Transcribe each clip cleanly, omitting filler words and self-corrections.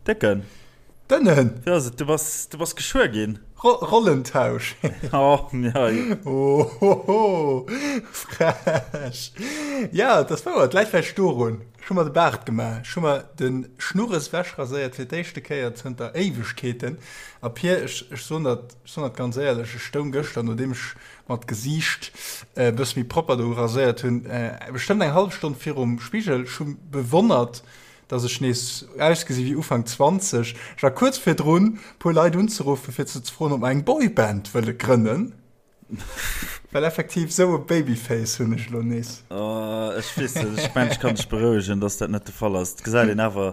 Décken. Dënnen. Wéi ass et? Du bass, du bass geschwuer ginn. Ro Rollentausch. Oh, ja. Ohoho, frech. Ja, et ass wouer, et läit vläicht dorun. Ech hu mer de Baart gemaach. Ech hu mer de Schnurres wechraséiert fir d'éischte Kéier zënter Éiwegkeeten. A Pir, ech, ech soen dat, ech soen dat ganz éierlech, ech stoung gëschter, nodeem ech mer d'Gesiicht e bësse méi propper do raséiert hunn, bestëmmt eng hallef Stonn virum Spigel. Ech hu bewonnert, dass ech nees ausgesi wéi Ufank 20. Ech war kuerz virdrun, puer Leit unzeruffen, fir ze froen, ob mer eng Boyband wëlle grënnen. Well effektiv esou e Babyface hunn ech elo nees. Oh, ech weess net, ech mengen, ech kann dech berouegen, dass dat net de Fall ass. Et gesäit een awer,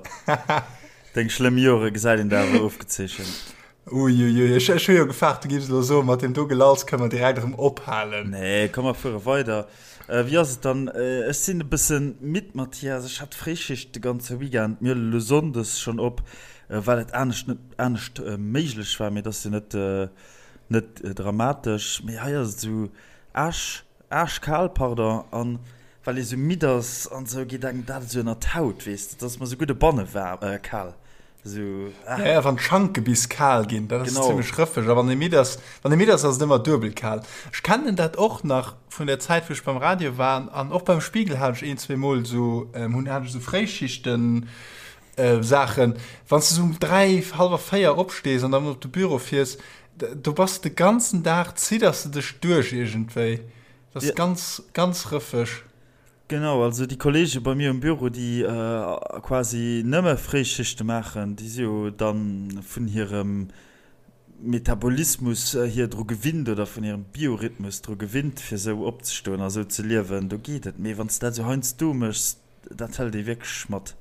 deng schlëmm Jore gesäit een der awer ofgezeechent. Uiuiui, ech, ech hu jo gefaart, du giffs elo soen, mat deem do Gelalls kënne mer direkt erëm ophalen. Nee, komm, mer fuere weider. Wéi ass et dann? Ech sinn e bëssen midd, Mathias. Ech hat Fréischicht de ganze Weekend. Mir huelen elo sonndes schonn op, well et anescht net anescht méiglech war. Mee et ass jo net net dramatesch. Mee hei ass et esou aasch aaschkal, pardon. An well ee sou midd ass an esou, geet engem dat esou ënner d'Haut, weess de. Et ass mer esou gutt e banne waarm, kal. Esou, ah. Ja, ja, wann d'Schanke bis kal ginn, dat ass genau. zimmlech rëffeg. A wann ee midd ass, wann ee midd ass, ass et ëmmer duebel kal. Ech kennen dat och nach vun der Zäit, wou ech beim Radio war an och beim Spiegel hat ech een, zweemol esou, ähm, hunn, hat ech esou Fréischichten, äh, Saachen. Wann s de esou um 3, hallwer 4 opstees an dann op de Büro fiers, do bass de de ganzen Dag, zidders de dech duerch iergendwéi. Dat ass ja. ganz, ganz rëffeg. Genau, also déi Kollege bei mir um Büro, déi quasi nëmme Fréischichte maachen, déi si jo dann vun hirem Metabolismus hier dru gewinnt oder vun hirem Biorhythmus dru gewinnt, fir esou opzestoen a esou ze liewen, do geet et. Mee wann s de dat esou heiansdo méchs, dat hëlt ee wierklech mat.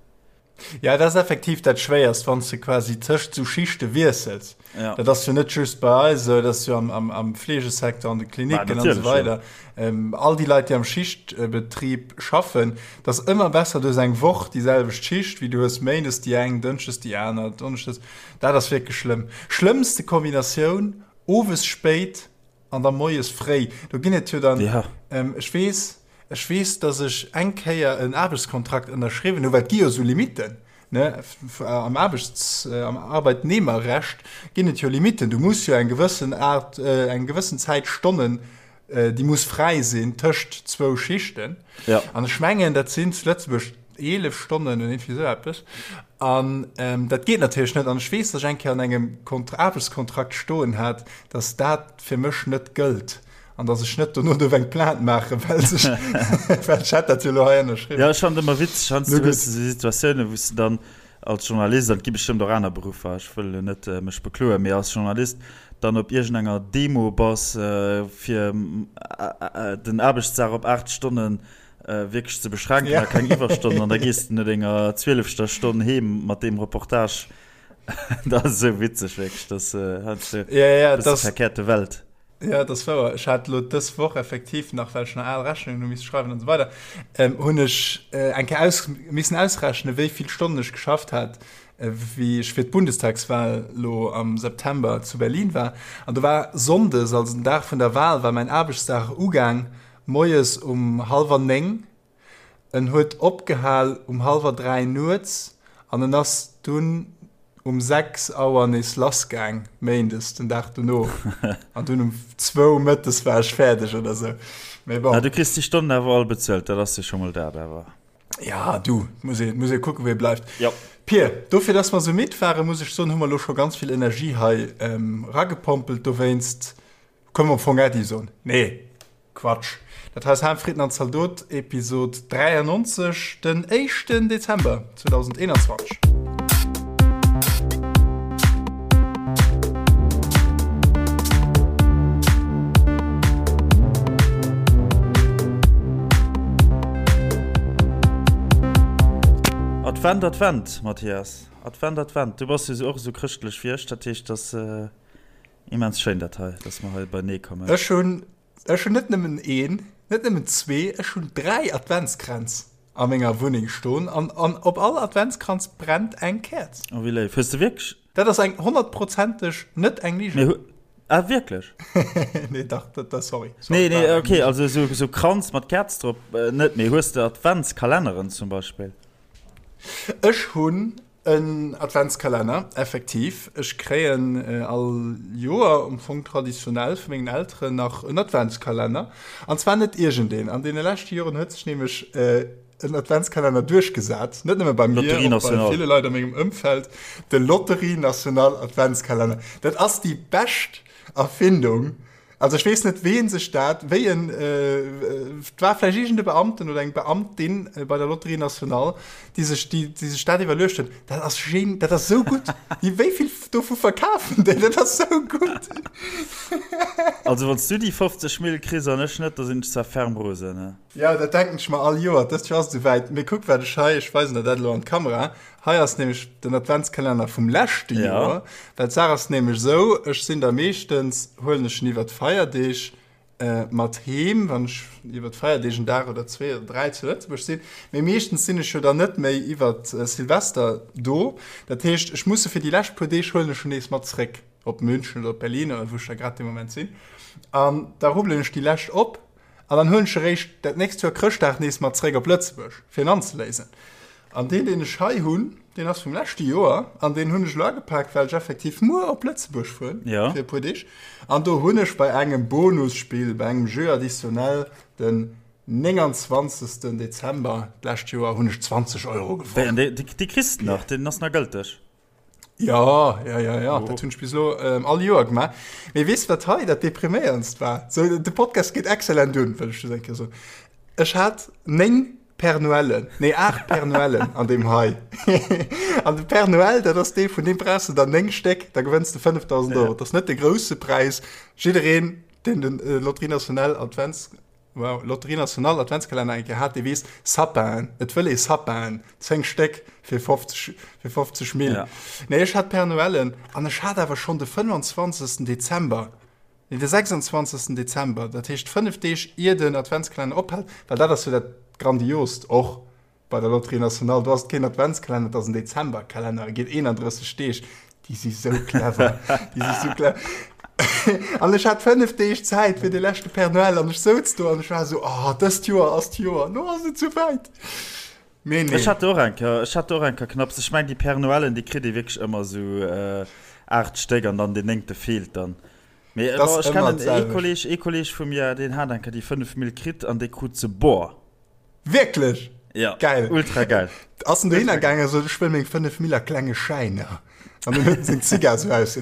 Ja, dat ass effektiv dat Schwéierst, wann s de quasi tëscht sou Schichte wiessels. Ja. Dat ass jo net just bei eis esou, dat ass jo am, am, am Fleegesecteur, an de Klinicken an esou weider. Ja. Ähm, all déi Leit, déi am Schichtbetrib schaffen, dat ass ëmmer besser, du hues eng Woch déi selwecht Schicht, wéi du hues méindes déi eng, dënschdes déi aner, donneschdes. Dat ass wierklech schlëmm. Schlëmmste Kombinatioun, owes spéit An da moies fréi, do ginn et jo dann, ja. ähm, ech weess, ech weess, dass ech eng Kéier en Aarbechtskontrakt ënnerschriwwen hu, well et gi jo esou Limitten, ne, am Aarbechts-, äh, am Arbeitnehmerrecht ginn et jo Limitten. Du muss jo eng gewëssen Aart, äh, eng gewëssen Zäit Stonnen, äh, déi muss fräi sinn tëscht zwou Schichten. Ja. An ech mengen, dat sinn zu Lëtzebuerg 11 Stonnen oder irgendwie esou eppes. An ähm, dat geet natierlech net. An ech weess, dass ech eng Kéier an engem Kont Aarbechtskontrakt stoen hat, dass dat fir mech net gëllt an dass ech net dono duerf eng Plainte maachen, well sech, well ech hätt dat jo elo hei ënnerschriwwen. Ja, ech fannen et ëmmer witzeg, heiansdo hues de esou Situatiounen, wou s de dann als Journalist, an et gi bestëmmt och aner Beruffer, ech wëll elo net mech bekloen, mee als Journalist dann op iergendenger Demo bass, fir den Aarbechtsdag op 8 Stonnen wierklech ze beschränken a keng Iwwerstonnen, an da gees de no denger zwielefter Stonn heem mat deem Reportage. Dat ass esou witzeg, wierklech, dat ass heiansdo e bësse verkehrte Welt. Ja, dat ass wouer. Ech hat elo dës Woch effektiv nach, well ech nach al Rechnungen hu misse schreiwen an esou weider, hunn ech eng Kéier aus, missen ausrechnen, wéi vill Stonnen ech geschafft hat, wéi ech fir d'Bundestagswahl elo am September zu Berlin war. An do war sonndes, also den Dag vun der Wahl, war mäin Aarbechtsdag ugaang Moies um hallwer 9, en huet opgehal um hallwer 3 nuets an en ass dunn um 6 Auer nees lassgaang, méindes den Dag dono. An dunn um zwou mëttes war ech fäerdeg oder sou. Mee bon. Du kriss déi Stonnen awer all bezuelt, dat ass jo scho mol dat awer. Ja, du, muss ee, muss ee kucken, wéi e bleift. Jo. Pir, dofir, dass mer sou midd waren, muss ech soen, hu mer elo scho ganz vill Energie hei eragepompelt. Dowéinst Kënne mer am Fong Äddi soen? Nee, Quatsch. Dat hei ass Ham, Fritten an Zaldot, Episod 93, den éischten Dezember 2021. Advent, Advent, Mathias. Advent, Advent. Du bass jo och esou chrëschtlech wéi ech, dat heescht, dass. Immens schéin dat hei, dass mer hei beinee kommen. Ech hunn, ech hunn net nëmmen een, net nëmmen zwee, ech hunn 3 Adventskränz a menger Wunneng stoen an, an op all Adventskranz brennt eng Käerz. Oh wéi léif. Hues de wierklech? Dat ass eng honnertprozenteg net eng Ligen. Mee hu, ah wierklech? Nee dach, dat, dat, sorry. Sorry, Nee, nee, okay, also esou, esou Kranz mat Käerz drop net, mee hues de Adventskalenneren zum Beispill? Ech hunn. En Adventskalenner, effektiv. Ech kréien all Joer, am Fong traditionell, vu mengen Elteren nach en Adventskalenner. An zwar net iergendeen. An deene leschte Joren huet sech nämlech en Adventskalenner duerchgesat, net nëmme bei mir, och bei ville Leit a mengem Ëmfeld, de Lotterie Nationale Adventskalenner. Dat ass déi bescht Erfindung. Also ech weess net, ween sech dat, wéi en, et war vläicht iergend e Beamten oder eng Beamtin bei der Lotterie Nationale, déi sech, déi, déi sech dat iwwerluecht huet. Dat ass gen, dat ass esou gutt. Déi, wéi vill dovu verkafen déi? Dat ass esou gutt. Also wann s du déi 50 Mille kriss an ech net, da sinn ech zwar ferm rosen, ne? Jo, dat denken ech mer all Joer. Dëst Joer ass et esouwäit. Mee kuck, wat ech hei, ech weisen der dat elo an d'Kamera. Hei ass nämlech den Adventskalenner vum leschte Joer. Well d'Saach ass nämlech esou, ech sinn da meeschtens, huelen ech en iwwer d'Feierdeeg mat heem, wann ech iwwer d'Feierdeeg en Dag oder zwee oder dräi zu Lëtzebuerg sinn. Mee meeschtens sinn ech jo dann net méi iwwer Silvester do. Dat heescht, ech muss e fir déi lescht puer Deeg huelen ech en nees mat zréck op München oder op Berlin oder wou ech da grad dee Moment sinn. An da rubbelen ech déi lescht op an dann huelen ech eréischt dat nächst Joer Chrëschtdag nees mat zréck op Lëtzebuerg, fir en anzeléisen. An deen, deen ech hei hunn, deen ass vum leschte Joer an deen hunn ech elo agepaakt, well ech effektiv muer op Lëtzebuerg fueren ja. fir e puer Deeg. An do hunn ech bei engem Bonusspill, bei engem Jeu additionnel den 29. Dezember d'lescht Joer hunn ech 20 Euro gewonnen. Déi, déi, déi kriss de nach, deen ass nach gëlteg. Ja, ja, ja, ja. Oh. Dat hunn ech bis elo ähm, all Joer gemaach. Mee weess wat hei dat depriméierendst war? So, de Podcast geet excellent un, wëll ech just eng Kéier soen. Ech hat 9 Père Noëllen, nee 8 Père Noëllen an deem hei. An de Père Noël, dat ass dee, vun deem brauchs de der 9 Stéck, da gewënns de 5000 Euro. Dat ass net de grousse Präis. Jiddereen, deen den äh, Lotterie Nationale Advents Wow, Lotterie Nationale Adventskalenner eng Kéier hat, dee weess, Sapin, et wëll ee Sapin, 10 Stéck fir 50, fir 50 Mille. Ja. Nee, ech hat Père Noëllen an ech hat awer schonn de 25. Dezember, nee, de 26. Dezember, dat heescht 5 Deeg ier den Adventskalenner ophält, well dat ass jo dat Grandiost och Bei der Lotterie Nationale, do ass et keen Adventskalenner, et ass en Dezemberkalenner, e geet 31 Deeg. Déi si sou clever, déi si sou clever. An ech hat 5 Deeg Zäit fir de leschte Père Noël an ech souz do an ech war esou, oh, dëst Joer ass d'Joer, lo ass et souwäit. Mee nee. Ech hat och eng Kéier, ech hat och eng Kéier knapps. Ech meng déi Père Noëlen, déi kritt ee wierklech ëmmer esou 8 Stéck an dann deen néngte feelt dann. Mee ech kennen ee Kolleg, ee Kolleg vu mir, deen hat eng Kéier déi 5 Mille kritt an dee krut se bor. Wierklech? Ja. Geil. Ultra geil. Ass en dohinner gaangen a sot, ech wëll meng 5 Mille a klenge Schäiner. An dann huet en seng Zigar sou aus.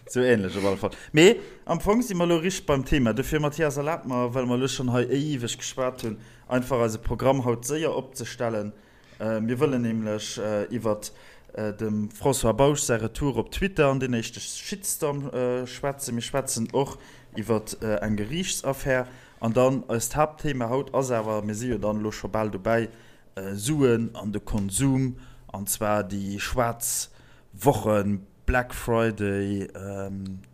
Sou ähnlech op alle Fall. Mee am Fong si mer elo richteg beim Thema. Dofir, Mathias, erlab mer, well mer elo schonn hei éiweg geschwat hunn, einfach eise Programm haut séier opzestellen. Mir wëllen nämlech iwwert dem François Bausch säi Retour op Twitter an deen éischte Shitstorm schwätzen. Mir schwätzen och iwwert eng Geriichtsaffär. An dann eist Haaptthema haut ass awer, mir si jo dann elo scho bal dobäi, Suen an de Konsum, an zwar déi schwaarz Wochen, Black Friday,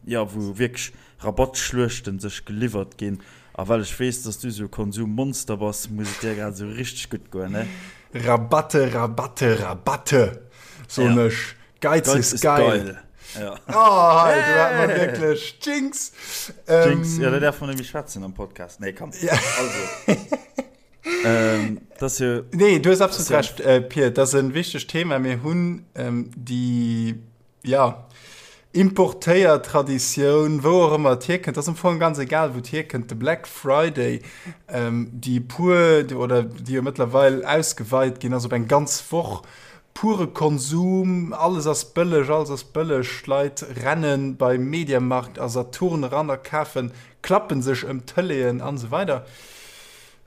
jo, wou wierklech Rabattschluechten sech geliwwert ginn. A well ech weess, dass du esou e Konsummonster bass, muss et dir grad esou richteg gutt goen, ne? Rabatte, Rabatte, Rabatte, soen ech. Geiz, Geiz ist geil. geil. Ja. Oh, hey, du hat man wirklich Jinx. Jinx, ähm, ja, da darf man nämlich schwätzen am Podcast. Nee, komm. Ja. Also. ähm, das jo, nee, du hast absolut ja. recht, äh, Pier. Das ist ein wichtiges Thema. Wir haben ähm, die, ja, importéiert Traditioun, wou och ëmmer et hierkënnt, ass am Fong ganz egal, wou et hierkënnt, de Black Friday, ähm, déi puer, oder déi jo mëttlerweil ausgeweit ginn ass op eng ganz Woch, Pure Konsum, alles ass bëlleg, alles ass bëlleg, d'Leit rennen bei Mediamarkt a Saturn eran a kafen, klappen sech ëm d'Tëleeën an esou weider.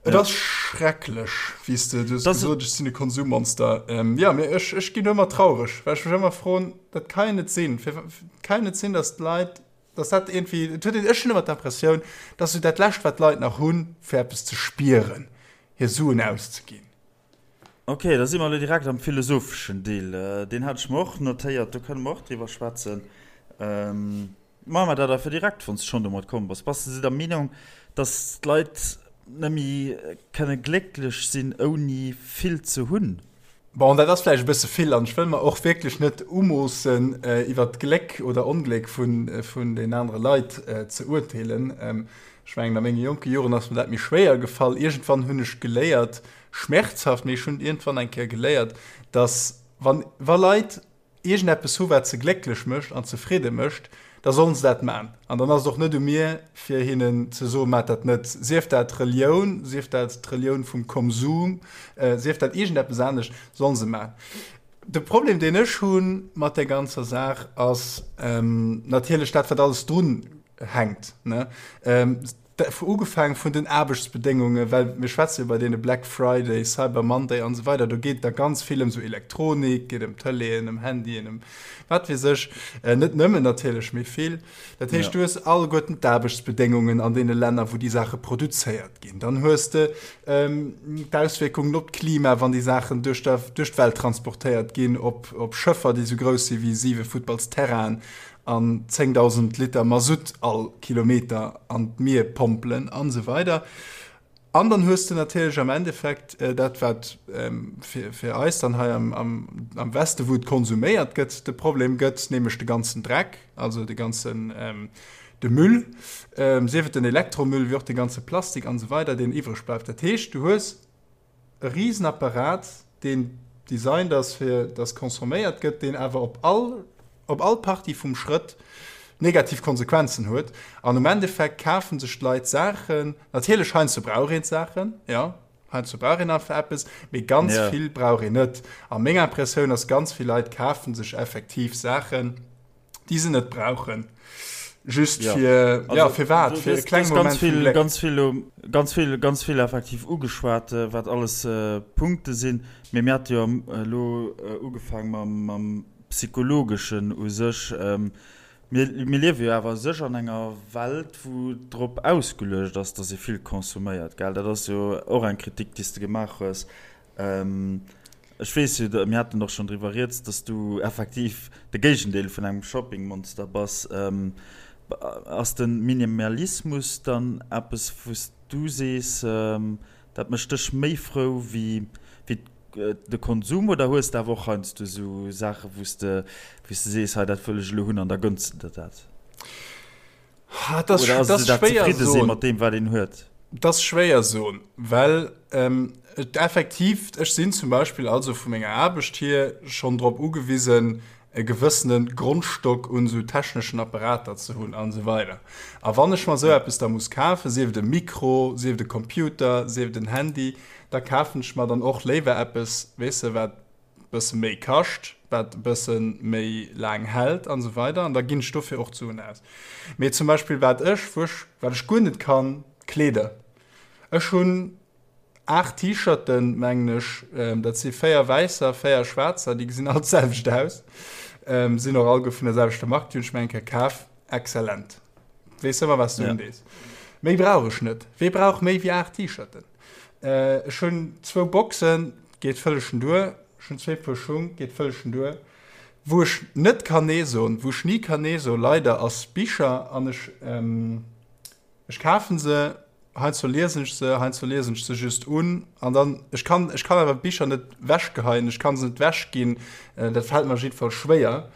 Et ass schrecklech, wéi s de, du hues gesot, ech sinn e Konsummonster. Jo, mee ech, ech ginn ëmmer traureg, well ech mech ëmmer froen, dat ka jo net sinn, fir, et ka jo net sinn, datt d'Leit, datt dat iergendwéi, et huet een, ech hunn ëmmer d'Impressioun, dat ass esou dat Lescht, wat d'Leit nach hunn, fir eppes ze spieren, hir Suen auszeginn. Ok, da si mer elo direkt am philosopheschen Deel. Deen hat ech mer och notéiert, do kënne mer och driwwer schwätzen. Maache mer dat einfach direkt, wann s de schonn domat komm bass. Bass de der Meenung, datt d'Leit net méi kënne glécklech sinn, ouni vill ze hunn? Bon, dat ass vläicht e bësse vill an ech wëll mer och wierklech net umoossen, iwwert d'Gléck oder Ongléck vun den anere Leit ze urteelen. Ech mengen, a menge jonke Joren ass mir dat méi schwéier gefall. Iergendwann hunn ech geléiert, schmerzhaft, mee ech hunn iergendwann eng Kéier geléiert, Dass wann, wa Leit iergendeppes hu wat se glécklech mécht an zefridde mécht, da sollen se dat man. An dann ass et och net u mir fir hinnen ze soen, Maacht dat net. Sief dat Relioun, sief dat d'Relioun vum Konsum, sief dat iergendeppes anescht, sollen se man. De Problem deen ech hu mat där ganzer Saach ass natierlech dat wat alles drun hänkt, ne? Ugefaangen vun den Aarbechtsbedéngungen, well mir schwätze jo bei deene Black Friday, Cyber Monday an esou weider, do geet et da ganz vill ëm esou Elektronik, geet ëm Tëleeën, ëm Handyen, ëm wat weess ech, net nëmmen natierlech, mee vill. Dat heescht, du hues alleguerten d'Aarbechtsbedéngungen an deene Länner, wou déi Saache produzéiert ginn. Dann hues de d'Auswierkungen op d'Klima, wann déi Saachen duerch d'Welt transportéiert ginn, op Schëffer, déi esou grouss si wéi siwe Futtballsterrainen an 10.000 Liter Masutt all Kilometer an d'Mier pompelen an esou weider. An dann hues de natierlech am Endeffekt dat, wat fir, fir eis dann hei am, am, am Weste, wou et konsuméiert gëtt, de Problem gëtt, nämlech de ganzen Dreck, also de ganzen, de Müll, sief et den Elektromüll, wéi och de ganze Plastik an esou weider, deen iwwreg bleift. Dat heescht, du hues e Risenapparat, deen designt ass fir dass consomméiert gëtt, deen awer op all op all Partie vum Schrëtt negativ Konsequenzen huet. An um Endeffekt kafe sech d'Leit Saachen, natierlech heiansdo brauch een d'Saachen, jo, heiansdo brauch een einfach eppes, mee ganz vill brauch een net. A meng Impressioun ass, ganz vill Leit kafe sech effektiv Saachen, déi se net brauchen. Just ja. fir also, ja, fir wat fir e kleng Moment ganz vill, ganz vill, ganz vill, ganz vill effektiv ugeschwat, äh, wat alles äh, Punkte sinn. Mee mir hat jo elo äh, ugefaang mam, mam psychologeschen u sech. Ähm, mir, mir liewe jo awer sech an enger Welt, wou drop ausgeluecht ass, dass ee vill konsuméiert, gell? Dat ass jo och eng Kritik, déi s de gemaach hues. Ech weess jo, mir haten och schonn driwwer rieds, dass du effektiv de Géigendeel vun engem Shoppingmonster bass. Ass de Minimalismus dann eppes, wou s du sees, dat mécht dech méi frou wéi de Konsum? Oder hues de awer och heiansdo esou Saache wou s de sees, hei dat wëll ech elo hunn an da gënns de der dat? Dat ass, Oder ass dat dat zefridde si mat deem, wat een huet? Dat ass schwéier soen, well ähm, et effektiv, ech sinn zum Beispill also vu menger Aarbecht hier schonn drop ugewisen, e gewëssene Grondstock un esou techneschen Apparater ze hunn an esou weider. A wann ech mer esou eppes da muss kafen, sief et e Mikro, sief et e Computer, sief et en Handy, da kafen ech mer dann och léiwer eppes, weess de, wat bësse méi kascht, wat e bësse méi laang hält an esou weider an da ginn ech dofir och d'Suen aus. Mee zum Beispill wat ech, wou ech, wat ech guer net kann, Kleeder. Ech hunn 8 T-Shirten, mengen ech, dat si 4 wäisser, 4 schwaarzer, déi gesinn all d'selwecht aus, sinn och alleguer vun der selwechter Mark, déi hunn ech mir eng Kéier kaf, exzellent. Weess ëmmer wat s du undees. Méi brauch ech net. Wee brauch méi wéi 8 T-Shirten? Ech hunn zwou Boxen, geet vëllegen duer. Ech hunn zwee Puer Schung, geet vëllegen duer. Wou ech net kann nee soen, wou ech ni kann nee soen, leider, ass Bicher. An ech, ech kafen se, heiansdo liesen ech se, heiansdo liesen ech se just un. An dann, ech kann, ech kann awer Bicher net wechgeheien, ech kann se net wechginn. Dat fält mer jiddefalls schwéier.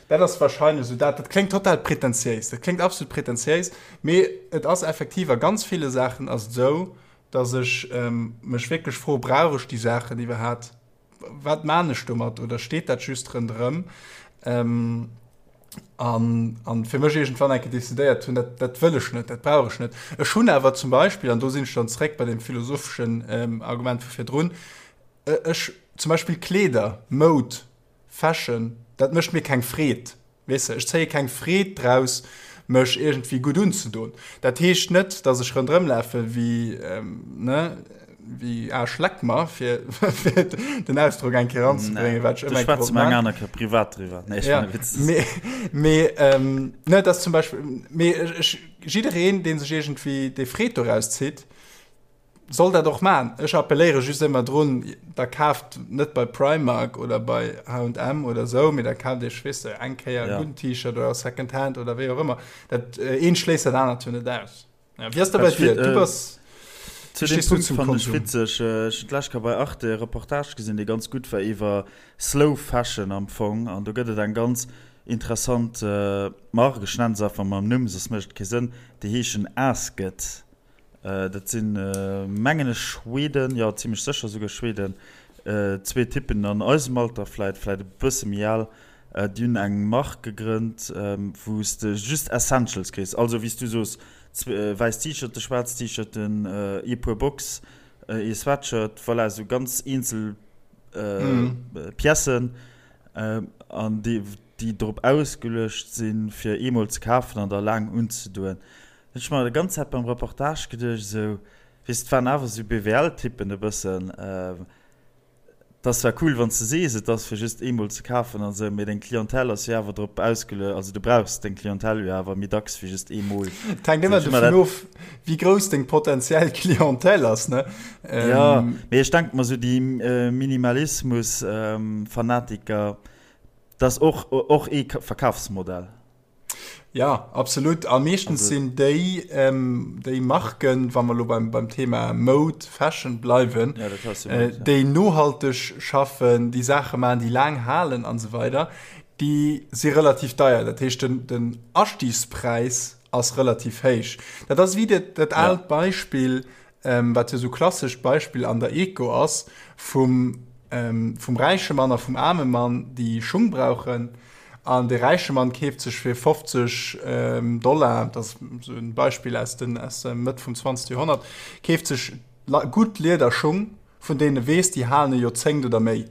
Dat ass wahrscheinlech esou dat. Dat kléngt total prätentiéis, dat kléngt absolut prätentiéis, mee et ass effektiv a ganz ville Saachen ass et esou, datt ech mech wierklech fro, brauch ech déi Saachen iwwerhaapt? Wat maan ech domat? Oder steet dat just ronderëm? An, an fir mech iergendwann eng Kéier decidéiert hunn, dat, dat wëll ech net, dat brauch ech net. Ech hunn awer zum Beispill, an do sinn ech dann zréck bei deem philosopheschen Argument vu virdrun, ech zum Beispill Kleeder, Moud, Fashion, dat mécht mir keng Freed, weess de. Ech zéie keng Freed draus, mech iergendwéi gutt unzedoen. Dat heescht net, dass ech ronderëm lafe wéi, ne, wéi Aarsch leck mer, fir den Ausdrock eng Kéier eranzebréngen, wat ech ëmmer eng Kéier wollt maachen. Eng aner Kéier privat driwwer. Nee, ech ja, Witz. Mee, mee ne, dat zum Beispill, mee ech, jiddereen, dee sech iergendwéi déi Freed doraus zitt, Soll dat och maan. Ech appelléiere just ëmmer drun, da kaaft net bei Primark oder bei H&M oder sou, mee da kaaft iech, weess de, eng Kéier e gudden T-Shirt oder Second Hand oder wéi och ëmmer. Dat eent schléisst dat anert jo net aus. Ja, wéi ass dat bei dir? Du bass, Zu deem Punkt fannen ech witzeg, ech hunn d'lescht Kéier bei Arte e Reportage gesinn, dee ganz gutt war iwwer Slow Fashion am Fong. An do gëtt et eng ganz interessant Mark, ech nennen se einfach mam Numm, soss mécht et kee Sënn, déi heeschen Asket. Dat sinn, mengen ech, Schweden, jo, zimlech sécher souguer Schweden. Zwee Typen an eisem Alter, vläit, vläit e bësse méi al, déi hunn eng Mark gegrënnt, wou s de just Essentials kriss. Also wéi s du soos, wäiss T-Shirten, schwaarz T-Shirten, ee Puer Box, ee Sweatshirt, voilà, esou ganz eenzel Piècen, an déi, déi drop ausgeluecht sinn, fir eemol ze kafen an da laang unzedoen. Hunn ech mer déi ganz Zäit beim Reportage geduecht, esou, Weess, et waren awer sou BWL-Typen e bëssen. Et ass zwar cool, wann s de sees, et ass fir just eemol ze kafen an esou, mee deng Clientèle ass jo awer drop ausgelue-, also du brauchs deng Clientèle jo awer méi dacks wéi just eemol. Et hänkt ëmmer dovun of, wéi grouss deng potentiell Clientèle ass, ne? Jo, mee ech denke mer sou déi Minimalismus-Fanatiker, dat ass och, och ee Verkafsmodell. Ja, absolut. A meeschtens sinn déi, ähm, déi Marken, wa mer lo beim, beim Thema Mode, Fashion bleiwen, ja, äh, déi nohalteg schaffen, déi Saache maachen, déi laang halen an esou weider, déi si relativ deier. Dat heescht, den, den Astiegspräis ass relativ héich. Dat ass wéi dat, dat aalt ja. Beispill, ähm, wat jo sou klassescht Beispill an der Eco ass, vum, ähm, vum räiche Mann a vum aarme Mann, déi Schung brauchen. An de räiche Mann keeft sech fir 50 Dollar, dat ass esou e Beispill aus den, aus der Mëtt vum 20. Joerhonnert, keeft sech gutt Liederschung, vun deenen e weess, déi halen e Joerzéngt oder méi.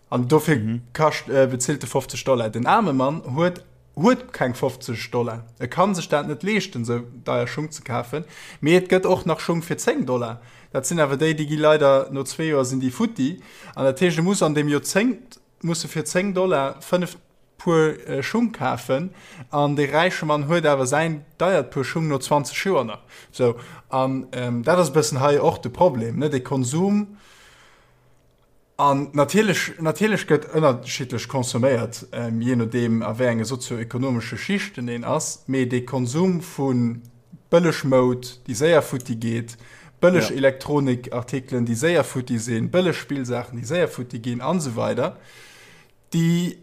An dofir kascht, bezilt e 50 Dollar. Den aarme Mann huet, huet keng 50 Dollar. E ka sech dat net leeschten, esou deier Schung ze kafen. Mee et gëtt och nach Schung fir 10 Dollar. Dat sinn awer déi, déi gi leider no zwee Joer sinn déi futti. An dat heescht, e muss an deem Joerzéngt muss e fir 10 Dollar 5 Puer Schung kafen an dee räiche Mann huet awer säin deiert Puer Schung no 20 Joer nach. Sou, an dat ass e bëssen hei och de Problem, ne, de Konsum. An natierlech, natierlech gëtt ënnerschiddlech consomméiert, jee nodeem a wéi enge sozio-ekonomesche Schichten een ass, mee dee Konsum vu bëlleg Moud, déi séier futti geet, bëlleg ja. Elektronikartikelen, déi séier futti sinn, bëlleg Spillsaachen, déi séier futti ginn an esou weider, déi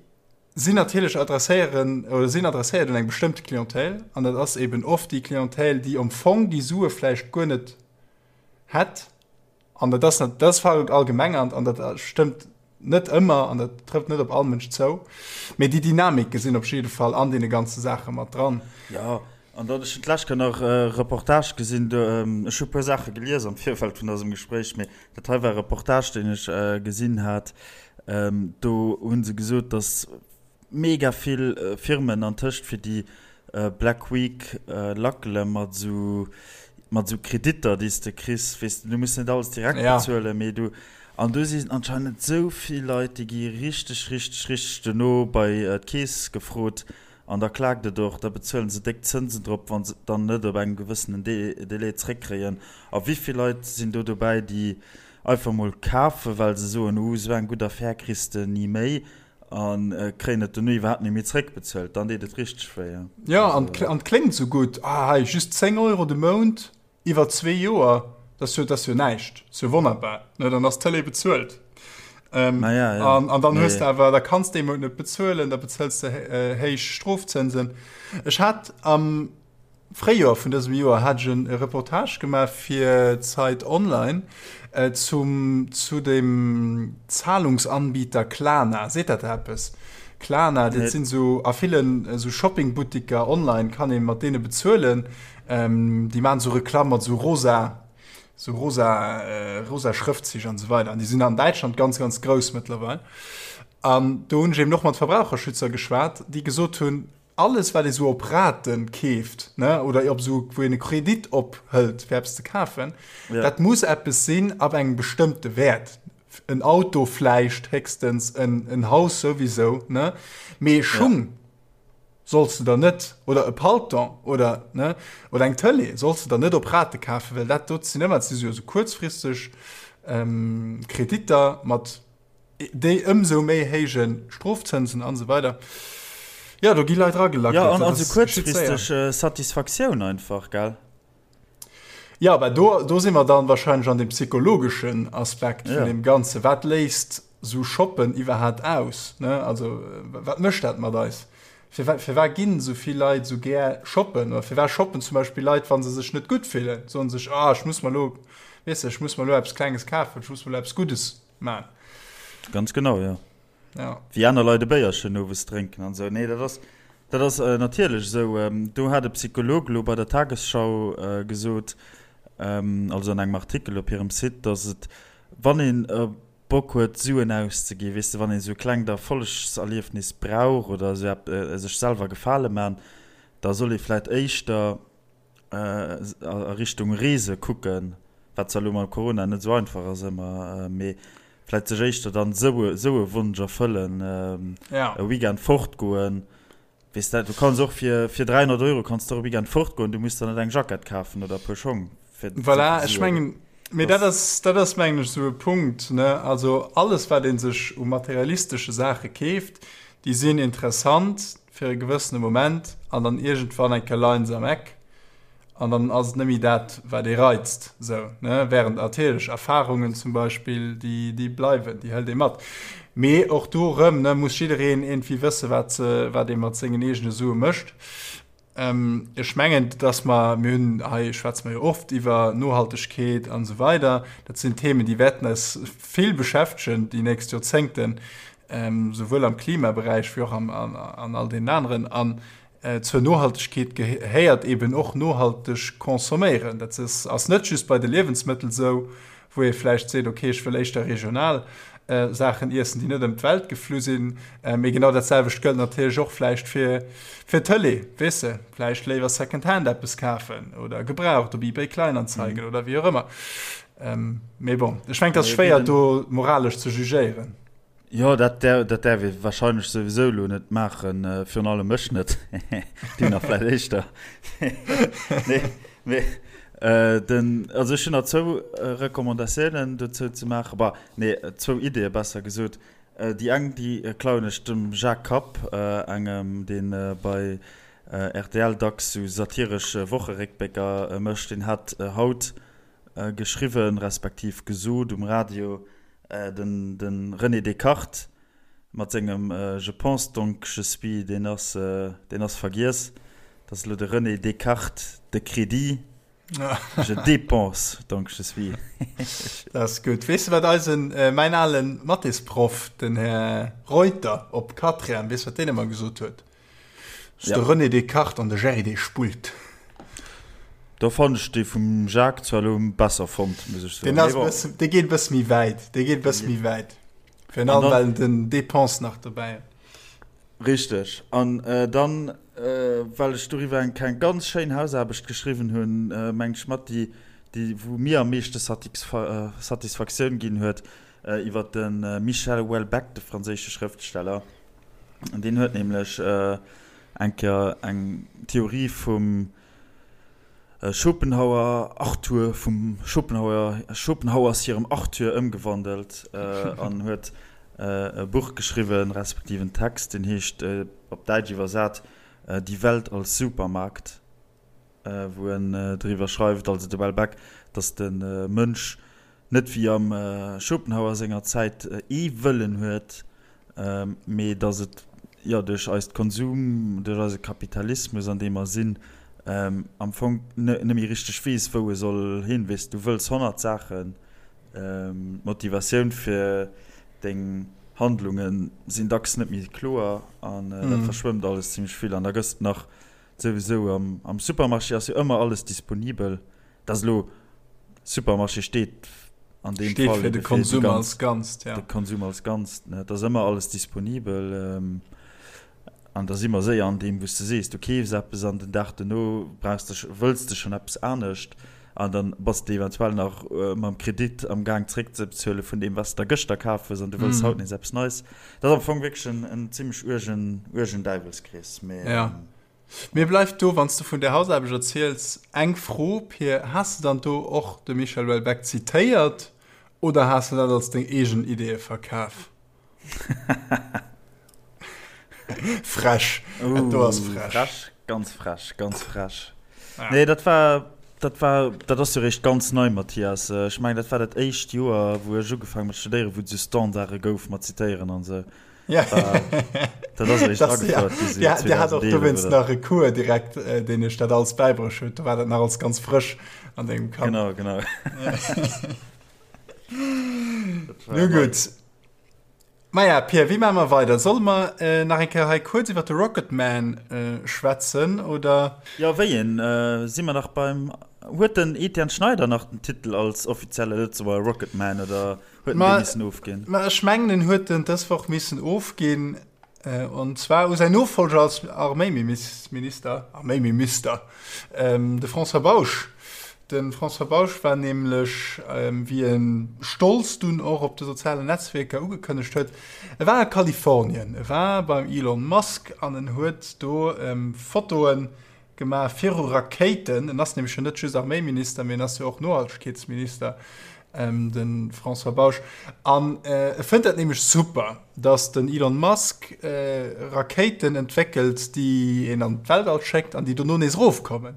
sinn natierlech adresséieren oder sinn adresséiert un eng bestëmmte Clientèle an dat ass eben oft déi Clientèle, déi am Fong déi Sue vläicht guer net hätt. An dat ass, dat ass verallgemengernd an dat stëmmt net ëmmer an dat trëfft net op all Mënsch zou. Mee déi Dynamike sinn op jidde Fall an deene ganze Saache mat dran. Jo, an dann, ech hunn d'lescht Kéier nach e Reportage gesinn, do, ech hu e puer Saache gelies am Virfeld vun dësem Gespréich, mee dat hei war e Reportage, deen ech gesinn hat, do hu se gesot, datt Mega vill Firmen antëscht fir déi Black Week lackele mat esou mat esou Kreditter déi s de kriss, weess de, du muss net alles direkt bezuelen, mee du an do sinn anscheinend esou vill Leit déi gi richteg richteg richteg dono bei d'Keess gefrot an da klaakt et och, da bezuelen se déck Zënsen drop wa se et dann net op engem gewëssenen Délai zréckkréien. A wéi vill Leit sinn do dobäi déi einfach mol kafen, well se soen, uh esou eng gutt Affär kriss de ni méi A kréien et dono iwwerhaapt net méi zréckbezuelt, dann deet et richteg wéi. Jo, an et kléngt esou gutt, ah hei just 10 Euro de Mount iwwer zwee Joer, dat ass jo, dat ass jo näischt, dat ass jo wonnerbar, ne, dann ass d'Tëlee bezuelt. Naja, ja. An, an dann hues de awer, da kanns de ee Mount net bezuelen, da bezëls de héich Strofzënsen. Ech hat am Fréijoer vun dësem Joer hat ech e Reportage gemaach fir Zeit Online zum zu dem Zahlungsanbieter Klarna. Seet dat der eppes? Klarna, dat sinn esou a villen esou Shoppingbuttiker online kann ee mat deene bezuelen. Déi maachen esou Reklamm mat esou rosa esou rosa rosa Schrëftzich an esou weider. An déi sinn an Däitschland ganz ganz grouss mëttlerweil. An do hunn ech eben och mat Verbraucherschützer geschwat, déi gesot hunn, Alles wat ee sou op Raten keeft, ne, oder op sou wou een e Kredit ophëlt fir eppes ze kafen, ja. dat muss eppes sinn ab engem bestëmmte Wäert. En Auto vläicht héchstens, en, en Haus souwisou, ne, mee Schung ja. solls de der net, oder e Palton oder, ne, oder eng Tëlee solls de der net op Rate kafen, well dat dot sinn ëmmer, dat si jo sou kuerzfristeg ähm, Kreditter mat Déi ëmsou méi héije Strofzënsen an esou weider. Jo, do gi Leit eragelackelt. Jo, an also kuerzfristeg Satisfaktioun einfach, gell? Jo, mä do, do si mer dann wahrscheinlech an deem psychologeschen Aspekt vun deem Ganzen. Wat léist esou Shoppen iwwerhaapt aus, ne? Also, wat mécht dat mat eis? Firwat, firwat ginn esou vill Leit esou gär shoppen? Oder firwat shoppen zum Beispill Leit, wa se sech net gutt fillen? Soen sech, Ah, ech muss mer elo, weess de, ech muss mer elo eppes Klenges kafen, ech muss mer elo eppes Guddes man. Ganz genau, jo. Ja. Wéi aner Leit e Béierchen owes drénken an esou. Nee, dat ass, dat ass natierlech esou. Do hat e Psycholog elo bei der Tagesschau gesot, also an engem Artikel op hirem Site, datt et, wann een Bock huet Suen auszeginn, weess de, wann een esou e klengt Erfollegserliefnis brauch oder esou epp, sech selwer Gefale man, da soll ee vläicht éischter a Richtung Reese kucken, wat zwar elo mam Corona net esou einfach ass ëmmer, mee vläicht sech éischter dann esou esou e Wonsch erfëllen, e Weekend fortgoen. Weess de, du kanns och fir fir 300 Euro kanns de och e Weekend fortgoen, du muss der net eng Jackett kafen oder e puer Schong fir Voilà, ech mengen, mee dat ass, dat ass mengen ech esou e Punkt, ne, also alles wat ee sech u materialistesche Saache keeft, déi sinn interessant fir e gewëssene Moment an dann iergendwann eng Kéier leien se am Eck an dann ass et net méi dat, wat ee reizt, esou, ne, während natierlech Erfarungen zum Beispill, déi, déi bleiwen, déi hëlt ee mat. Mee och do erëm, ne, muss jiddereen iergendwéi wësse wat se, wat ee mat sengen eegene Sue mécht. Ech mengen, dass mer, mir hunn hei, schwätze mer jo oft iwwer Nohaltegkeet an esou weider, dat sinn Themen, déi wäerten eis vill beschäftegen déi nächst Joerzéngten, souwuel am Klimaberäich wéi och an all deenen aneren. An zur Nohaltegkeet gehéiert eben och nohalteg consomméieren. Dat ass net just bei de Liewensmëttel esou, wou ee vläicht seet, okay, ech wëll éischter regional Saachen iessen, déi net ëm d'Welt geflu sinn. Mee genau dat selwecht gëllt natierlech och vläicht fir fir d'Tëlee, weess de, vläicht léiwer Secondhand eppes kafen oder gebraucht op eBay Kleinanzeigen oder wéi och ëmmer. Mee bon, ech mengen, et ass schwéier do moralesch ze jugéieren. Jo, dat dat däerf ee warscheinlech souwisou elo net maachen, virun allem ech net, du nach vläicht éischter. Nee, mee den, also ech hunn nach zwou Recommandatiounen dozou ze maachen, bah, nee, zwou Ideeë besser gesot. Déi eng, déi klauen ech dem Jacques Kapp, engem, dee bei rtl dacks sou satiresch Wocheréckblécker mécht. Deen hat haut geschriwwen, respektiv gesot um Radio, Den de René Descartes mat sengem Je pense donc je suis, deen ass, deen ass vergiess. Dat ass elo de René Descartes de Crédit, Je dépense donc je suis. Dat ass gutt. Weess de wat eisen, mäin ale Mathésproff, den Här Reuter op Quatrième, weess wat deen ëmmer gesot huet? Ass de René Descartes an de Jerry dee spullt. Do fannen ech dee vum Jacques zwar elo besser fonnt, muss ech soen. Deen ass bëssen, dee geet e bësse méi wäit, dee geet e bësse méi wäit. Virun allem well en den Dépense nach dobäi huet. Richteg. An dann, well ech doriwwer eng keng ganz schéin Hausaarbecht geschriwwen hunn, mengen ech mat déi, déi wou mir am meeschte Satisfaktioun ginn huet, iwwer de Michel Houellebecq, de franséische Schrëftsteller. Deen huet nämlech eng Kéier eng Theorie vum Schopenhauer Arthur, vum Schopenhauer, Schopenhauers hirem Arthur ëmgewandelt an huet e Buch geschriwwen, respektiv en Text, deen heescht, op Däitsch iwwersat, Die Welt als Supermarkt, wou en driwwer schreift, also de Houellebecq, datt de Mënsch net wéi am Schopenhauer senger Zäit ee Wëllen huet, mee datt et jo duerch eist Konsum, duerch eise Kapitalismus an deem mer sinn, am Fong net méi richteg weess wou e soll hin. Weess, du wëlls 100 Saachen, d'Motivatioun fir deng Handlunge sinn dacks net méi kloer an dat verschwëmmt alles zimmlech vill an da gëss de nach souwisou am Supermarché ass jo ëmmer alles disponibel. Dat ass elo, Supermarché steet an deem Fall fir de Konsum als Ganzt, ja. De Konsum als Ganzt, ne. Et ass ëmmer alles disponibel. An da si mer séier an deem, wou s de sees, du keefs eppes an den Dag dono brauchs de, wëlls de schonn eppes anescht. An dann bass de eventuell nach mam Kredit am Gaang zréckzebezuele vun deem, wat s de der gëschter kaf hues an du wëlls haut nees eppes Neis. Dat ass am Fong wierklech en zimmlech uergen, uergen Däiwelskrees. Mee. Ja. Mir bleift do, wann s de vun där Hausaarbecht erziels, eng Fro, Pir, Has de dann do och de Michel Houellebecq zitéiert oder has de dat als deng eegen Ideeë verkaf? Frech, dat do ass frech. Frech, ganz frech, ganz frech. Nee, dat war, dat war, dat ass jo réischt ganz nei, Mathias. Ech mengen, dat war dat éischt Joer, wou ech ugefaangen mat studéieren, wou et esou Standarde gouf mat Zitéieren an esou. Ja. Dat ass eréischt agefouert gi sou Dir hat och dowéinst nach e Cours direkt, deen iech dat alles bäibruecht huet. Do war dat nach alles ganz frësch an dengem Kapp. Genau, genau. Nu gutt. Maja, Pia, wéi maache mer weider? Solle mer nach eng Kéier hei kuerz iwwer de Rocketman schwätzen, oder? Jo, wéi een? Si mer nach beim. Huet den Etienne Schneider nach den Titel als offizielle Lëtzebuerger Rocketman oder huet en dee missen ofginn? Ma ech mengen, en huet en dës Woch missen ofginn. An zwar u säin Nofollger als Arméiminister, Arméimimister, de François Bausch. De François Bausch war nämlech, wéi e stolz dunn och op de sozialen Netzwierker ugekënnegt huet, e war a Kalifornien, e war beim Elon Musk an en huet do Fotoe gemaach viru Rakéiten. En ass nämlech jo net just Arméiminister, mee en ass jo och Nohaltegkeetsminister, de François Bausch. An e fënnt dat nämlech super, datt den Elon Musk Rakéiten entwéckelt, déi een an d'Weltall schéckt an déi dono nees erofkommen.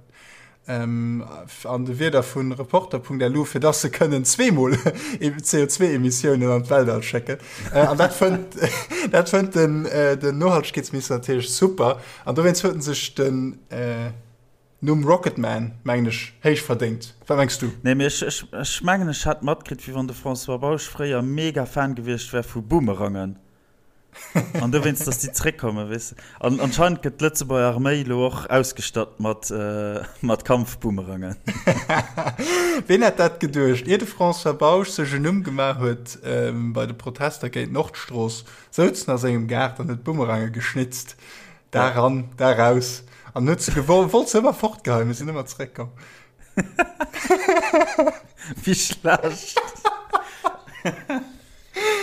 An de Wierder vu Reporter.lu, fir dass se kënnen zweemol CO2-Emissiounen an d'Weltall schécken. An dat fënnt, dat fënnt den, den Nohaltegkeetsminister natierlech super. An dowéinst huet en sech den Numm Rocketman, mengen ech, héich verdéngt. Wat mengs du? Nee, mee ech, ech, ech mengen, ech hat matkritt, wéi wann de François Bausch fréier mega Fan gewiescht wär vu Boomerangen. An dowéinst, dass déi zréckkommen, weess de. An anscheinend gëtt d'Lëtzebuerger Arméi elo och ausgestatt mat, mat Kampfboomerangen. Ween hätt dat geduecht, ier de François Bausch sech en Numm gemaach huet bei de Protester géint d'Nordstrooss, souz en a sengem Gaart an huet Boomerange geschnitzt. Da ran, da raus. An huet se gewollt, wollt se ëmmer fortgeheien, mee sinn ëmmer zeréckkomm. Wéi schlecht.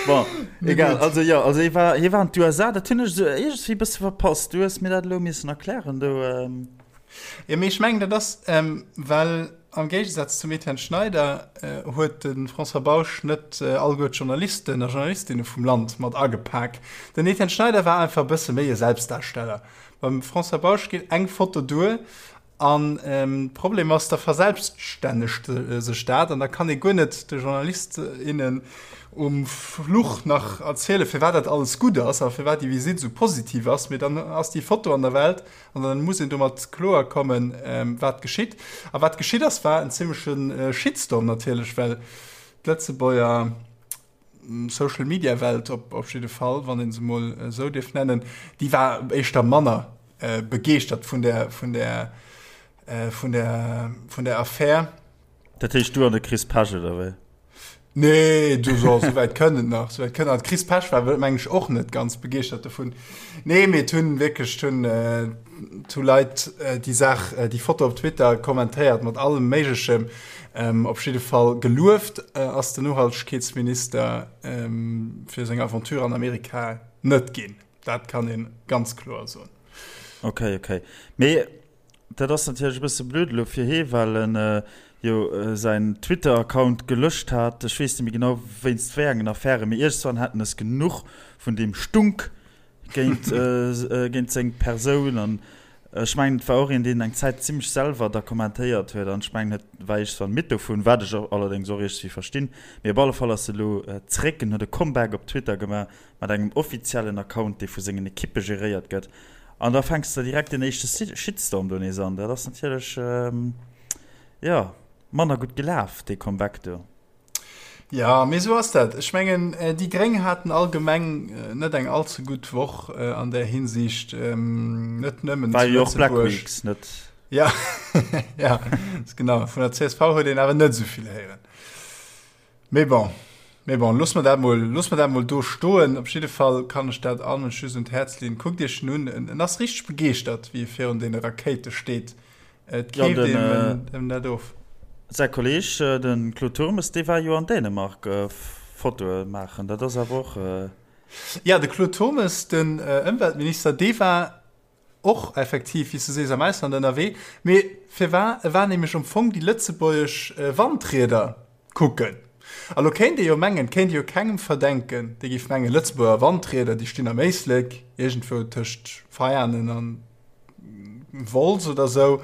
Bon, egal. Also jo, also hie war, hie war an d'USA, dat hunn ech esou iergendwéi e bësse verpasst. Du hues mir dat elo missen erklären do. Jo, mee ech mengen, dat ass, well am Géigesaz zum Etienne Schneider huet de François Bausch net alleguer d'Journalisten a Journalistinne vum Land mat agepak. Den Etienne Schneider war einfach e bësse méi e Selbstdarsteller. Beim François Bausch geet eng Foto duer An de Problem ass, da verselbststännegt sech dat an da kann ee guer net de Journalist, innen um Fluch nach erzielen, firwat dat alles gutt ass a firwat déi Visitt esou positiv ass. Mee dann ass déi Foto an der Welt an dann muss een domat kloer kommen, wat geschitt. A wat geschitt ass, war en zimmleche Shitstorm natierlech, well d'Lëtzebuerger Social Media Welt op op jidde Fall, wann een se mol esou dierf nennen, déi war éischter manner begeeschtert vun der vun der vun der vun der Affär. Dat heescht du an de Chris Pesch oder wéi? Nee, du so, so wäit kënnt et nach, so wäit kënnt nach. Chris Pesch war meng ech och net ganz begeeschtert dovun. Nee, mee et hunn wierklech, et hunn, et hu Leit déi Saach, déi Foto op Twitter kommentéiert mat allem Méiglechem. Op jidde Fall gelueft ass den Nohaltegkeetsminister fir seng Aventure an Amerika net ginn. Dat kann ee ganz kloer soen. Ok, ok. Mee dat ass natierlech e bësse blöd elo fir hee, well en jo säin Twitter-Account gelöscht hat. Ech weess net méi genau wéinst wéi engen Affären, mee iergendswann hat en es genuch vun deem Stunk géint, géint seng Persoun. An ech mengen, et war och een, deen eng Zäit zimmlech selwer da kommentéiert huet. An ech mengen, et war iergendswann midd dovun, wat ech allerdéngs och iergendwéi verstinn. Mee op alle Fall ass e elo zréck en huet e Comeback op Twitter gemaach mat engem offiziellen Account, dee vu sengen Ekippe geréiert gëtt. An da fänks de direkt den éischte Shitstorm do nees an. Dat ass natierlech, jo, manner gutt gelaf, dee Comeback do. Jo, mee esou ass dat. Ech mengen, déi Gréng haten allgemeng net eng all ze gutt Woch an där Hinsicht, net nëmmen zu Lëtzebuerg. War jo och Black Weeks, net? Ja, ja, genau. Vun der csv huet een awer net esou vill héieren. Mee bon, mee bon, loosse mer dat mol, loosse mer dat mol do stoen. Op jidde Fall kann ech dat all Mënsch just un d'Häerz leeën. Kuckt Iech en un, en ass richteg begeeschtert, wéi e virun deene Rakéite steet. Et keeft ja, den, äh, net of. Säi Kolleg, äh, den Claude Turmes, dee war jo an Dänemark äh, Fotoe maachen. Dat ass awer och. Äh ja, de Claude Turmes, den äh, Ëmweltminister, dee war och effektiv, wéi s du sees, am Ausland ënnerwee. Mee firwar? E war nämlech am Fong déi lëtzebuergesch äh, Wandrieder kucken. A lo kéint ee jo mengen, et kéint ee jo kengem verdenken, dee géif mengen, Lëtzebuerger Wandrieder, déi stinn am Éislek, iergendwou tëscht Veianen an Wolz oder sou,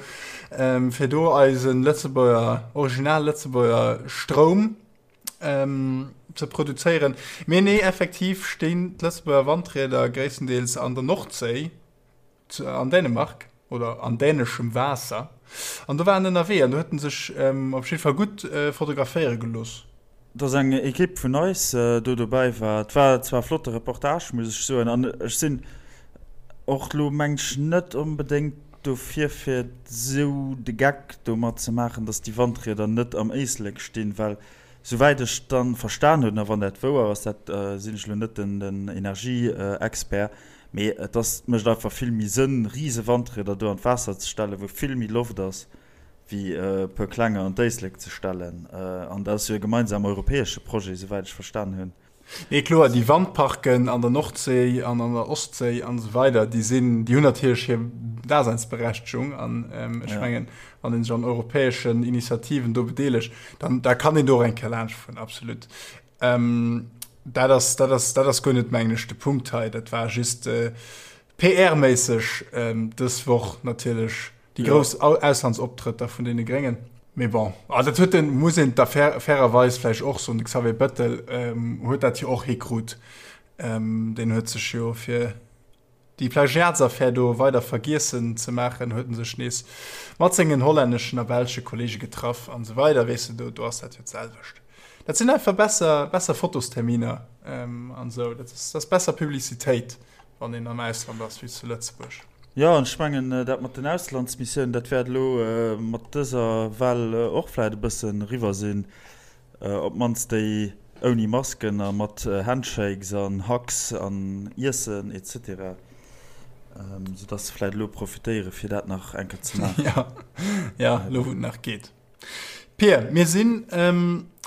fir do eise Lëtzebuerger, original Lëtzebuerger Stroum ze produzéieren. Mee nee, effektiv stinn d'Lëtzebuerger Wandrieder gréisstendeels an der Nordséi, an Dänemark oder an däneschem Waasser. An do war en ënnerwee an do huet en sech op jidde Fall gutt fotograféiere gelooss. Dass eng Ekipp vun eis do dobäi war. Et war zwar e flotte Reportage, muss ech soen, an ech sinn och elo, meng ech, net onbedéngt dofir, fir esou de Geck domat ze maachen, dass déi Wandrieder net am Éislek stinn, well souwäit ech dann verstan hunn, a wann dat wouer ass, dat sinn ech elo net den Energieexpert, mee et ass, mécht einfach vill méi Sënn, rise Wandrieder do an d'Waasser ze stellen, wou vill méi Loft ass, wéi e puer klenger an d'Éislek ze stellen. An dat ass jo e gemeinsam europäesche Projet, souwäit ech verstan hunn. Nee, kloer, déi Wandparken an der Nordséi an an der Ostséi an esou weider, déi sinn, déi hunn natierlech hir Daseinsberechtegung. An ech mengen, wann ee sech an europäeschen Initiativen do bedeelegt, dann da kann een do och eng Kéier laanschtfueren, absolut. Dat ass, dat ass, dat ass guer net, mengen ech, de Punkt hei. Dat war just PR-méisseg dës Woch natierlech Déi grouss Auslandsoptrëtter vun deene Gréngen. Mee bon, ah, dat huet den, muss een da fair, fairerweis vläicht och soen, de Xavier Bettel huet dat jo och hikrut. Deen huet sech jo fir déi Plagiatsaffär do weider vergiessen ze maachen, huet en sech nees mat sengen hollänneschen a belsche Kollege getraff an esou weider. Weess de, do, do ass dat jo d'selwecht. Dat sinn einfach besser, besser Fotosterminer an esou. Dat ass, dat ass besser Publicitéit, wann een am Ausland ass, wéi zu Lëtzebuerg. Jo, an ech mengen, dat mat den Auslandsmissiounen, dat wäert elo mat dëser Well och vläicht e bëssen eriwwer sinn. Op d'mannst déi ouni Masken a mat Handshakes an Hugs an Iessen et cetera. Soudass se vläicht elo profitéieren, fir dat nach eng Kéier ze maachen. Jo, jo, elo wou et nach geet. Pir, mir sinn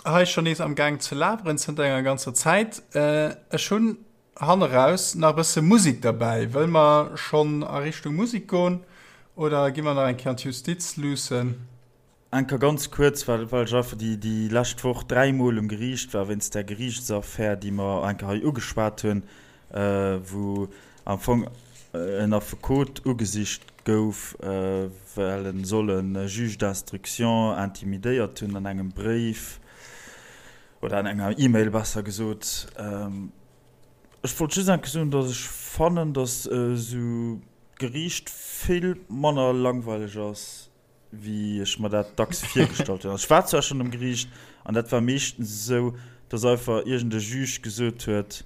hei schonn nees am Gaang ze laberen zënter enger ganzer Zäit. Ech hunn Hanneraus nach e bësse Musik derbäi. Wëll mer schonn a Richtung Musik goen oder gi mer nach eng Kéier an d'Justiz luussen? Eng Kéier ganz kuerz, well well ech einfach déi déi lescht Woch dräimol um Geriicht war wéinst där Geriichtsaffär, déi mer eng Kéier hei ugeschwat hunn, wou am Fong en Affekot ugesicht gouf, well en soll e Juge d'instruction intimidéiert hunn an engem Bréif. Oder an enger E-Mail besser gesot. Ech wollt just enke soen, datt ech fannen, datt esou d'Geriicht vill manner langweileg ass, wéi ech mer dat dacks virgestallt hunn. Also ech war zwar schonn um Geriicht an dat war meeschtens esou, datt einfach iergend e Juge gesot huet,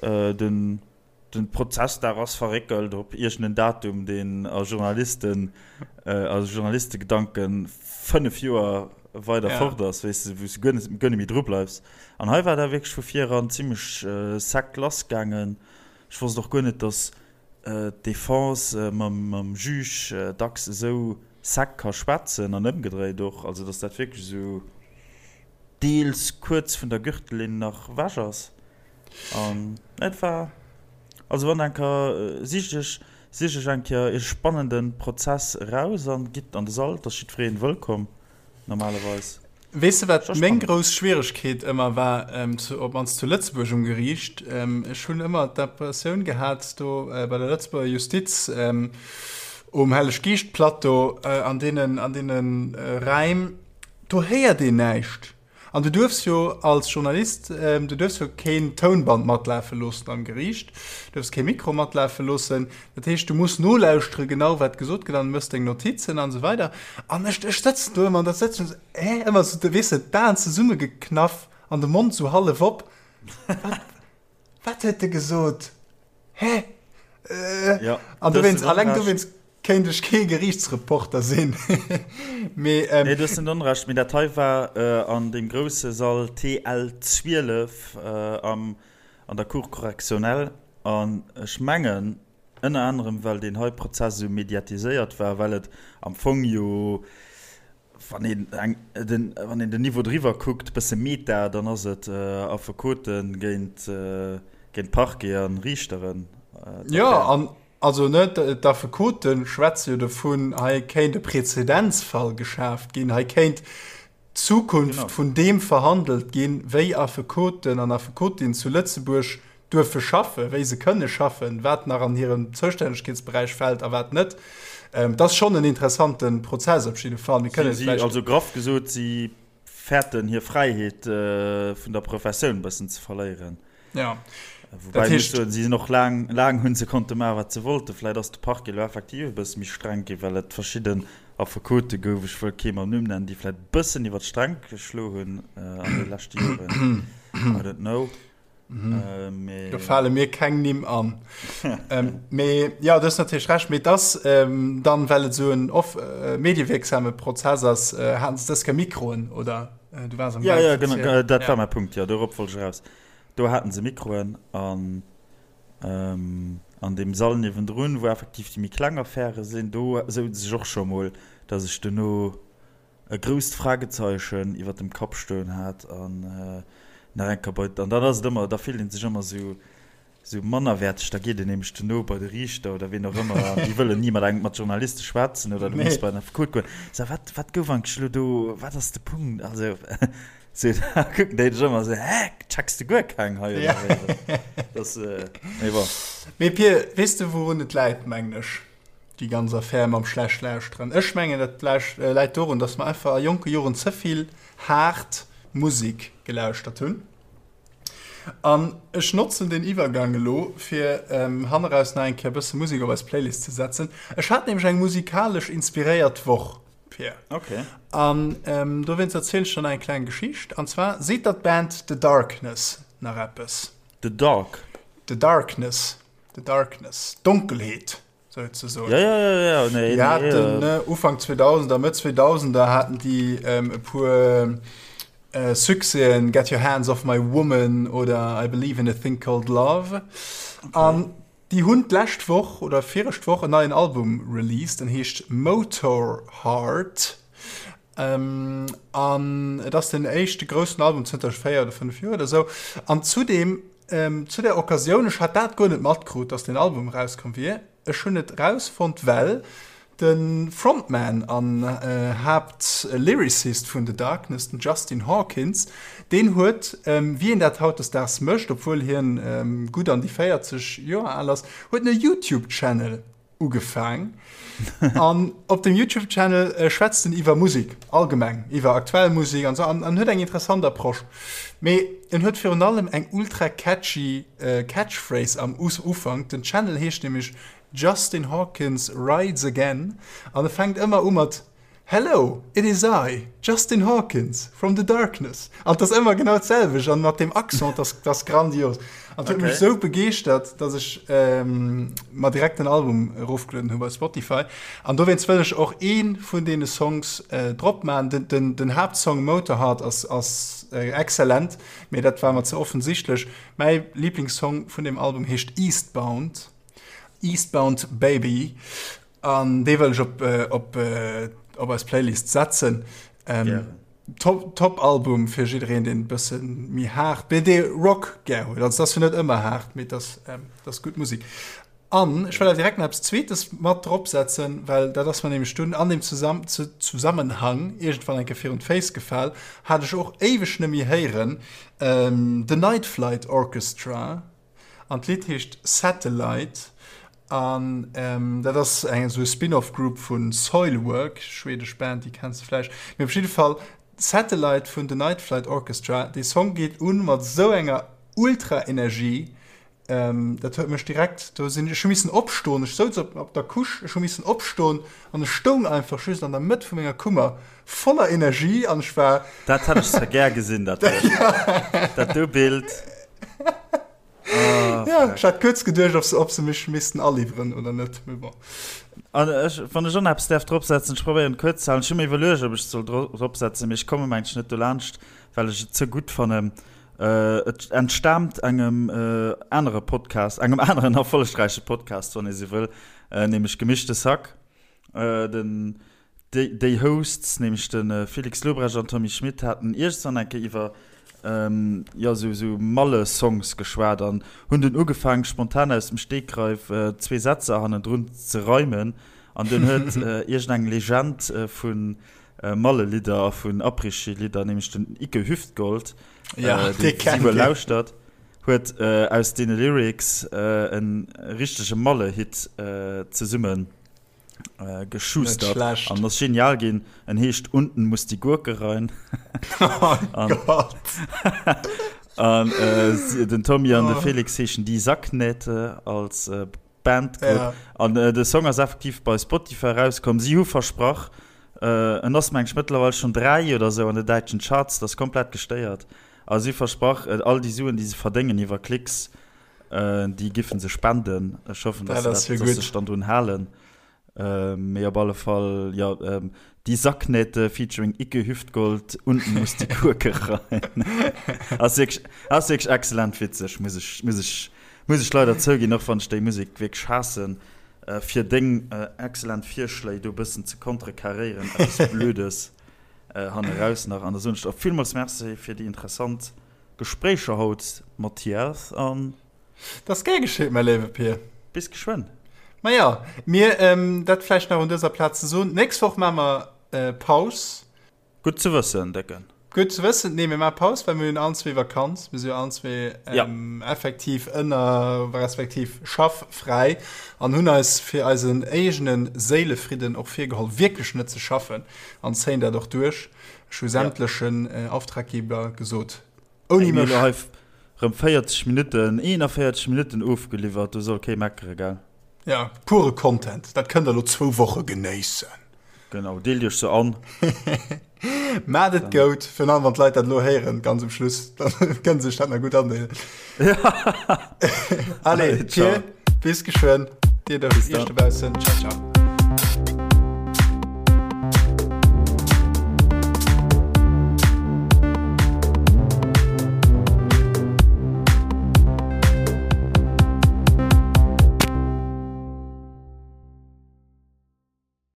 den Den Prozessdag ass verréckelt op iergend en Datum, deen a Journalisten, a Journalistegedanken 5 Joer weider fort ass, weess de, wou s de guer net, guer net méi dru bleifs. An hei war dat wierklech vu vir eran zimmlech sec lass gaangen. Ech wosst och guer net, datt d'Defense mam, mam Juge dacks esou sec ka schwätzen an ëmgedréit och. Also datt dat wierklech esou deels kuerz vun der Gürtellinn nach ewech ass. An et war, also wann enker, sicht iech, sicht iech eng Kéier ee spannenden Prozess eraus an gitt an de Sall, et ass jiddwereen wëllkomm normalerweis. Weess de wat meng grouss Schwieregkeet ëmmer war, op mannst zu Lëtzebuerg um Geriicht? Ech hunn ëmmer d'Impressioun gehat do bei der Lëtzebuerger Justiz um Helleg-Geescht-Plateau an deenen, an deene Räim, do héiert een näischt. An du duerfs jo als Journalist, du duerfs jo keen Tounband matlafe loossen am Geriicht, du duerfs kee Mikro matlafe loossen. Dat heescht, du muss nolauschtere genau wat gesot gëtt an méchs deng Notizen an esou weider. An ech, ech sëtzen do ëmmer an da sëtzen ech esou, hä, ëmmer esou, weess de, d'Aen zesummegeknaff an de Mond esou hallef op, wat, wat huet e gesot, hä? Ja, An dowéinst, alleng dowéinst Kéint ech kee Geriichtsreporter sinn, mee. Nee, du hues net Onrecht, mee dat hei war an deem grousse Sall TL 12 am, an der Cour correctionnelle. An ech mengen, ënner anerem well deen hei Prozess esou mediatiséiert war, well et am Fong jo, wann een eng, den, wann een den Niveau driwwer kuckt, bësse meta, dann ass et Affekote géint, géint Parquet a Riichteren, d'Affär. Jo, an Also ne, d'Affekote schwätze jo dovun, hei kéint e Präzedenzfall geschaaft ginn, hei kéint d'Zukunft vun deem verhandelt ginn, wéi Affekoten an Affekotinnen zu Lëtzebuerg duerfe schaffen, wéi se kënne schaffen, wat nach an hiren Zoustännegkeetsberäich fält a wat net. Et ass schonn en interessante Prozess op jidde Fall. Mir kënnen vläicht. Also graff gesot, si fäerten hir Fräiheet vun der Professioun e bëssen ze verléieren. Ja. Wobei ech muss soen, si sinn och laang, laang hunn se konnte maachen, wat se wollten. Vläit ass de Parquet elo effektiv e bësse méi streng ginn, well et verschidden. Affekote gouf, ech wëll kee mam Numm nennen, déi vläicht e bëssen iwwer d'Sträng geschlo hunn an de leschte Joren. I don't know. Mee. Do fale mir keng Nimm an. Mee jo, du hues natierlech Recht. Mee et ass dann, well et esou en off mediewierksame Prozess ass, haten se dës Kéier Mikroen, oder? Du waars am Gaang ze erzielen. Jo, jo, genau, dat war mäi Punkt, jo, dorop wollt ech eraus. Do haten se Mikroen an an deem Sall niewendrun, wou effektiv déi méi kleng Affäre sinn, do souz ech och scho mol, datt ech duerno e grousst Fragezeichen iwwer dem Kapp stoen hat an nach eng Kéier bei, an dann ass et ëmmer, da fillt ee sech ëmmer esou, esou mannerwäerteg, da geet een nämlech duerno bei de Riichter oder ween och ëmmer an déi wëllen ni mat engem, mat Journaliste schwätzen oder du muss bei den Affekot goen. So, wat, wat gouf eigentlech elo do, wat ass de Punkt? Also, sou, da kucken déi dech ëmmer esou, hä, checks de guer keng hei oder wéi? Das, mee bon. Mee Pir, weess de wourun et läit, mengen ech? Déi ganz Affär mam schlecht lauschteren. Ech mengen dat läit dorun, datt mer einfach a jonke Joren ze vill haart Musek gelauschtert hunn. An ech notzen deen Iwwergang elo fir hanneraus nach eng Kéier e bësse Musek op eis Playlist ze setzen. Ech hat nämlech eng musikalesch inspiréiert Woch, Pierre. Okay. An dowéinst erzielen ech der nach eng kleng Geschicht. An zwar seet der d'Band The Darkness nach eppes? The Dark? The Darkness. The Darkness, Donkelheet souzesoen. Ja, ja, ja, ja. Nee, die haten nee, äh. Ufank 2000er, Mëtt 2000er haten déi ähm, e puer äh, Succèsen, Get Your Hands Off My Woman oder I Believe in a Thing Called Love. Okay. An déi hunn d'lescht Woch oder virescht Woch en neien Album released, en heescht Motorheart. Ähm, an et ass den éischte groussen Album zënter 4 oder 5 Joer oder sou. An zudem Zu der Occasioun, ech hat dat guer net matkrut, dass deen Album erauskomm wier. Ech hunn et erausfonnt, well de Frontman an Haapt-Lyricist vun The Darkness, den Justin Hawkins, deen huet, wéi een dat hautdesdaags mécht, obwuel hien gutt an déi 40 Joer al ass, huet en e YouTube-Channel ugefaang an op dem YouTube Channel äh, schwätzt en iwwer Musik allgemeng, iwwer aktuell Musik an so an, an huet eng interessant Approche. Mee en huet virun allem eng ultra catchy äh, Catchphrase am Us Ufank. Den Channel heescht nämlech Justin Hawkins Rides Again an e fänkt ëmmer u mat Hello, it is I, Justin Hawkins, from the darkness. An 't ass ëmmer genau d'selwecht an mat deem Accent, dat ass grandios. An 't huet mech sou begeeschtert, dass ech mer direkt den Album erofgelueden hu bei Spotify. An dowéinst wëll ech och ee vun deene Songs drop maachen. Den, den Haaptsong Motorheart ass, ass exzellent, mee dat war mer ze offensichtlech. Mäi Liblingssong vun deem Album heescht Eastbound, Eastbound Baby. An dee wëll ech op, op, op eis Playlist setzen. Ähm, top, top Album fir jiddereen, deen e bësse méi haart, mee dee Rock gär huet. Also, dat ass jo net ëmmer haart, mee dat, ähm, dat ass gutt Musek. An ech wëll awer direkt nach eppes Zweetes mat drop setzen, well dat ass mer nämlech dunn an deem Zusamm Zusammenhang iergendwann eng Kéier virun d'Féiss gefal, hat ech och éiweg net méi héieren, ähm, The Night Flight Orchestra. An d'Lidd heescht Satellite an dat ass eng esou e Spin-off Group vu Soilwork, schwedesch Band, déi kenns de vläicht. Mee op jidde Fall Satellite vun The Night Flight Orchestra, dee Song geet un mat esou enger ultra Energie, dat huet mech direkt, do sinn ech hu missen opstoen, ech souz op op der Couche, ech hu missen opstoen an ech stoung einfach just an der Mëtt vu menger Kummer voller Energie an ech war. Dat hätt ech zwar gär gesinn, dat do, dat do Bild. Oh, ja, ech hat kuerz geduecht, ob se, ob se mech missten aliwweren oder net, mee bon. An ech, wann ech och nach eppes däerf dropsetzen, ech probéieren kuerz ze halen, ech hu mir iwwerluecht, ob ech et soll dropsetzen, mee ech komme mengen ech net dolaanscht, well ech et ze gutt fannen. Et entstaamt engem anere Podcast, engem aneren erfollegräiche Podcast, wann ee sou wëll, nämlech Gemischtes Hack. Den Déi Hosts, nämlech de Felix Lobrecht an Tommy Schmitt, haten iergendwann eng Kéier iwwer jo esou esou Malle-Songs geschwat an hunn dunn ugefaangen, spontan aus dem Stegreif zwee Sätzer hannendrun ze reimen. An dunn huet iergendeng Legend vu Malle-Lidder a vun Après-Ski-Lidder, nämlech den Icke Hüftgold, dee si wuel lauschtert, huet aus deene Lyrics e richtege Malle-Hit zesummen äh, geschustert an ass genial ginn. En heescht Unten muss die Gurke rein. Oh an, Gott. an äh, den Tommy an oh. de Felix heeschen die Sacknähte als äh, Bandgrupp. Ja. An äh, de Song ass effektiv bei Spotify rauskomm. Si hu versprach, En ass meng ech mëttlerweil schonn 3 oder sou an de däitschen Charts, dat ass komplett gestéiert. A si versprach, all déi Suen, déi se verdéngen iwwer Klicks, déi giffen se spenden. Ech hoffen, dass se dat, dass se sech dann drun halen. Mee op alle Fall, jo, Die Sacknähte featuring Ikke Hüftgold, Unten muss die Gurke rein. Ass wierklech, ass wierklech excellent witzeg, muss ech, muss ech, muss ech leider zouginn, och wann ech déi Musek wierklech haassen. Fir deng excellent Virschléi do bëssen ze contrecarréieren, eppes Blödes hanneraus nach. An da soen ech der och villmools Merci fir déi interessant Gespréicher haut, Mathias, an. Dat ass gär geschitt, mäi léiwe Pir. Bis geschwënn. Maja, mir, dat vläicht nach un dëser Plaz ze soen, d'nächst Woch maache mer Paus. Gutt ze wëssen, Décken. Gutt ze wëssen. Nee, mir maache Paus, well mir hunn allen zwee Vakanz. Mir si jo allen zwee effektiv ënner, respektiv schaff-fräi an hunn eis fir eisen éigene Séilefridden och virgeholl, wierklech net ze schaffen an zéien dat och duerch. Ech hu sämtlechen Auftraggeber gesot, ouni mech. Mir hu hei rëm 40 Minutten, 41 Minutten ofgeliwwert, do soll kee meckere, gell? Ja, pure Content, dat kënnt der elo zwou Woche genéissen. Genau, deelt iech se an. Maat et goud, virun allem wann d'Leit dat elo héieren, ganz um Schluss, dann kënne se sech dat nach gutt andeelen. Allez, Ciao, bis geschwënn, dir iech dobaussen, ciao, ciao.